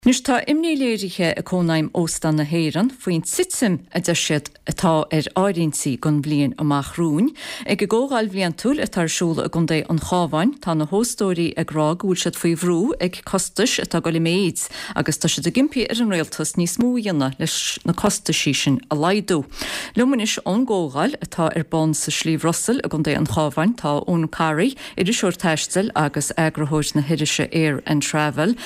Anois tá imní léirithe ag Cónaidhm Óstán na hÉireann faoin titim a deir siad atá ar áirithintí don bhliain amach romhainn. Ag a gcomhdháil bhliantúil atá ar siúl i gContae an Chabháin tá na hóstóirí ag rá go bhfuil siad faoi bhrú ag costais atá ag dul i méid agus tá siad ag impí ar an rialtas níos mó a dhéanamh leis na costaisí sin a laghdú. Liom anois ón gcomhdháil atá ar bun sa Sliabh Rosail i gContae an Chabháin tá Eoin Corry, iriseoir taistil agus eagarthóir na hirise Air and Travel.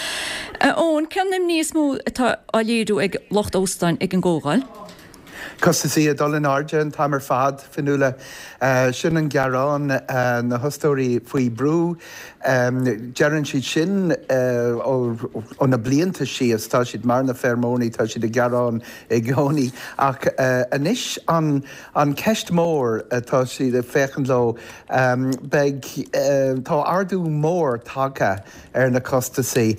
A Eoin, cén imní is mó atá á léiriú ag lucht óstáin ag an gcomhdháil? Costaisí ag dul in airde an t-am ar fad, Fionnuala. Sin an gearán, na hostóirí faoi brú. Deireann siad sin ó na blianta síos, tá siad mar na feirmeoirí, tá siad ag gearán i gcónaí. Ach anois an cheist mhór atá siad ag féachaint leo, Beidh, tá ardú mór tagtha ar na costasaí,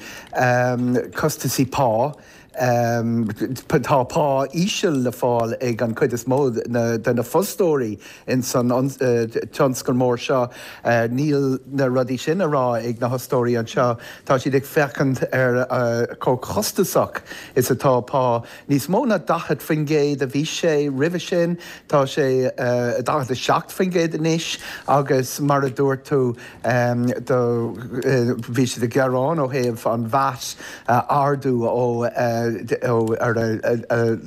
costasaí pá. Tá pá íseal le fáil ag an chuid is mó de na fostóirí ins an tionscal mór seo. Níl na rudaí sin á rá ag na hostóirí anseo. Tá siad ag féachaint ar chomh costasach is atá pá. Níos mó ná 40% a bhí sé roimhe sin, tá sé 47% anois agus mar a dúirt tú do bhí siad ag gearán ó thaobh an VAT a ardú ó ar a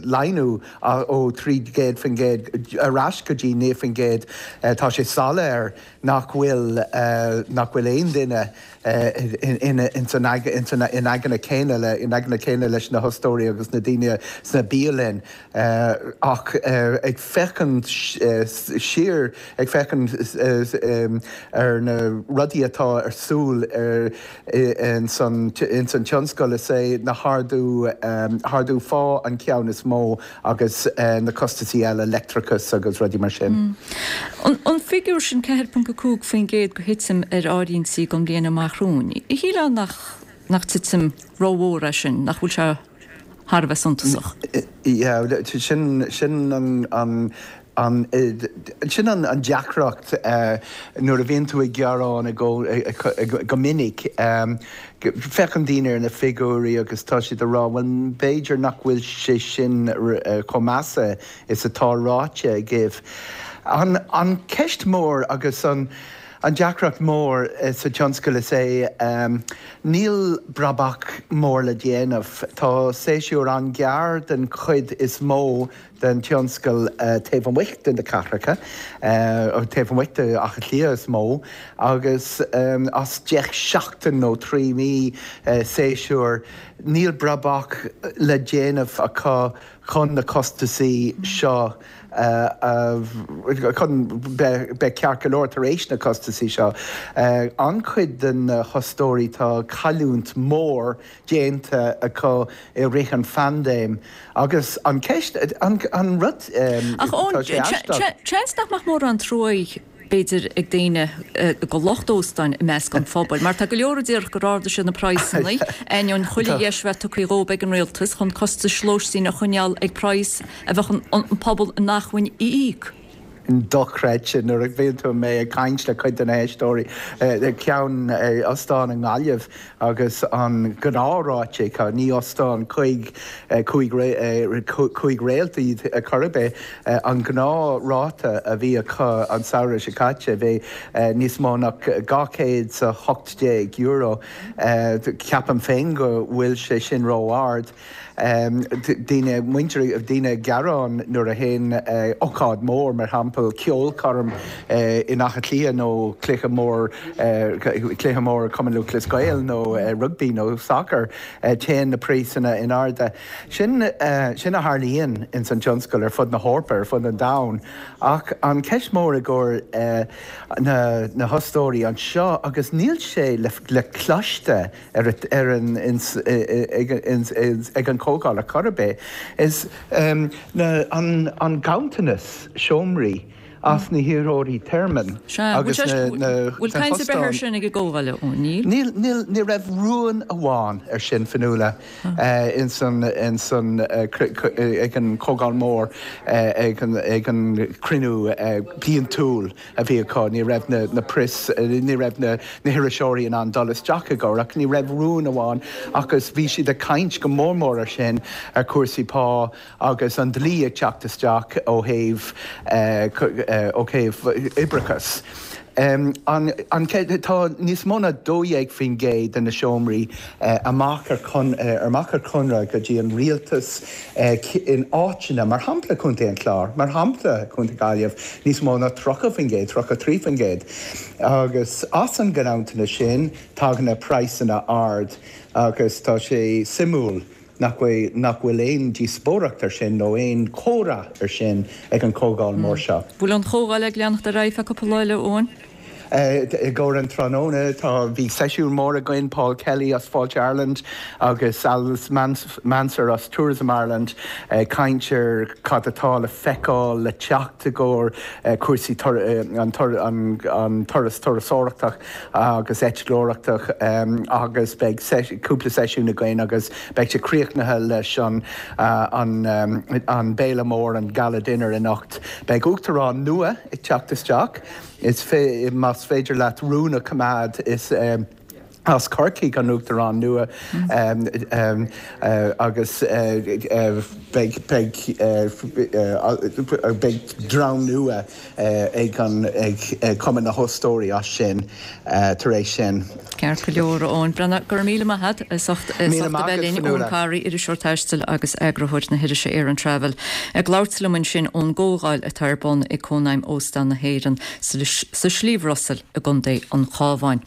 laghdú ó 300% ar ais go dtí 9%. Tá sé soiléir nach bhfuil nach bhfuil aon duine ins an in aigne céanna le in aigne céanna leis na hostóirí agus na daoine sna bialainn ach ag féachaint siar ag féachaint ar na rudaí atá ar siúl ar ins an ins an tionscal is é na hardú ardú phá an ceann is mó agus na costasaí eile, leictreachas agus rudaí mar sin. An figiúr sin, 4.5% de thitim ar áirithintí don bhliain amach romhainn, shílfeá nach nach titim rómhór é sin, nach bhfuil sé thar a bheith suntasach? Yeah, sin sin an an an sin an an deacracht nuair a bhíonn tú ag gearán go minic. Féachann daoine ar na figiúirí agus tá siad ag rá, bhuel, b'fhéidir nach bhfuil sé sin chomh measa is atá ráite agaibh. An cheist mhór agus an deacracht mhór sa tionscal is ea níl brabach mór le déanamh. Tá séasúr an-ghearr den chuid is mó den tionscal taobh amuigh de na cathracha, taobh amuigh de Áth Cliath is mó, agus as 10 seachtain nó 3 mí séasúr, níl brabach le déanamh acu chun na costasaí seo a, chun beith ceart go leor tar éis na costasaí seo. An-chuid de na hostóirí tá cailliúint mhór déanta acu i rith an phaindéim agus an ceist, an rud, Ach tá sé aisteach. Seans nach mbeadh mórán truaí b'fhéidir ag daoine do lucht óstáin i measc an phobail mar tá go leor a déarfadh gur ardaigh siad na praghsanna ainneoin chuile dheis a bheith tugtha dhóibh ag an rialtas chun costais lóistín a choinneáil ag praghas a bheadh an pobal in acmhainn a íoc. dochreidte nuair a bhíonn tú mé ag caint le cuid de na héisteoirí ceann ostán i nGaillimh agus an gnáthráite acu, ní ostán cuig 5 réalt iad chor ar bith, an gnáthráta a bhí acu an samhradh seo caite bhí níos mó ná €218. Ceapaim féin go bhfuil sé sin ró-ard. Daoine, muintir, daoine ag gearán nuair a théann ócáid mór, mar shampla ceolchoirm in Áth Cliath nó cluiche mór, cluiche mór Cumann Lúthchleas Gael nó rugbaí nó sacar, téann na praghsanna in airde. Sin, sin a tharlaíonn ins an tionscal ar fud na hEorpa, ar fud an domhain. Ach an ceist mór i gcomhair na, na hostóirí anseo, agus níl sé le, le cloiste, ar ar an ag an chomhdháil ar chor ar bith is na an an ganntanas seomraí. as na hiarrthóirí tearmainn agus na Bhfuil caint ar bith air sin ag an gcomhdháil, a Eoin? Níl? Níl, níl, ní raibh rún amháin ar sin, Fionnuala, ins an, ins an, ag an Chomhdháil Mhór, ag an, ag an cruinniú bliantúil a bhí acu. Ní raibh na, na press, ní raibh na, na hiriseoirí in ann dul isteach i gcomhair ach ní raibh rún amháin agus bhí siad ag caint go mór mór ar sin, ar chúrsaí pá, Agus an dlí ag teacht isteach ó thaobh ó thaobh oibreachas. An tá níos mó ná 12% de na seomraí amach ar amach ar conradh go dtí an rialtas in áiteanna, mar shampla Contae an Chláir, mar shampla Contae Gaillimh, níos mó ná 30%, 33%. Agus as an gcnamhtanna sin tagann na praghsanna ard agus tá sé suimiúil Nach bhfuil, nach bhfuil aon díospóireacht ar sin nó aon chomhrá ar sin ag an chomhdháil mór seo. Bhfuil an chomhdháil ag leanacht ar aghaidh feadh cúpla lá eile, Eoin? I gcomhair an tráthnóna tá, bhí seisiún mór againn, Paul Kelly as Fáilte Ireland agus Alice Mansergh as Tourism Ireland ag caint ar cad atá le feiceáil le teacht i gcomhair cúrsaí an turas turasóireachta. agus eitleoireachta agus beidh cúpla seisiún againn agus beidh sé críochnaithe leis an an béile mór, an Gala Dinner anocht. Beidh Uachtarán nua ag teacht isteach. Is más féidir leat rún a choimeád is as Corcaigh an Uachtarán nua agus beidh beidh beidh dream nua ag an ag Cumann na hÓstóirí as sin tar éis sin. Ceart go leor, a Eoin. Breathnach, go raibh míle maith agat as ucht a bheith linn. Eoin Carey, iriseoir taistil agus eagarthóir na hirise Air and Travel, ag labhairt liom ansin ón gcomhdháil atá ar bun ag Cónaidhm Óstán na hÉireann sa Sliabh Rosail i gContae an Chabháin.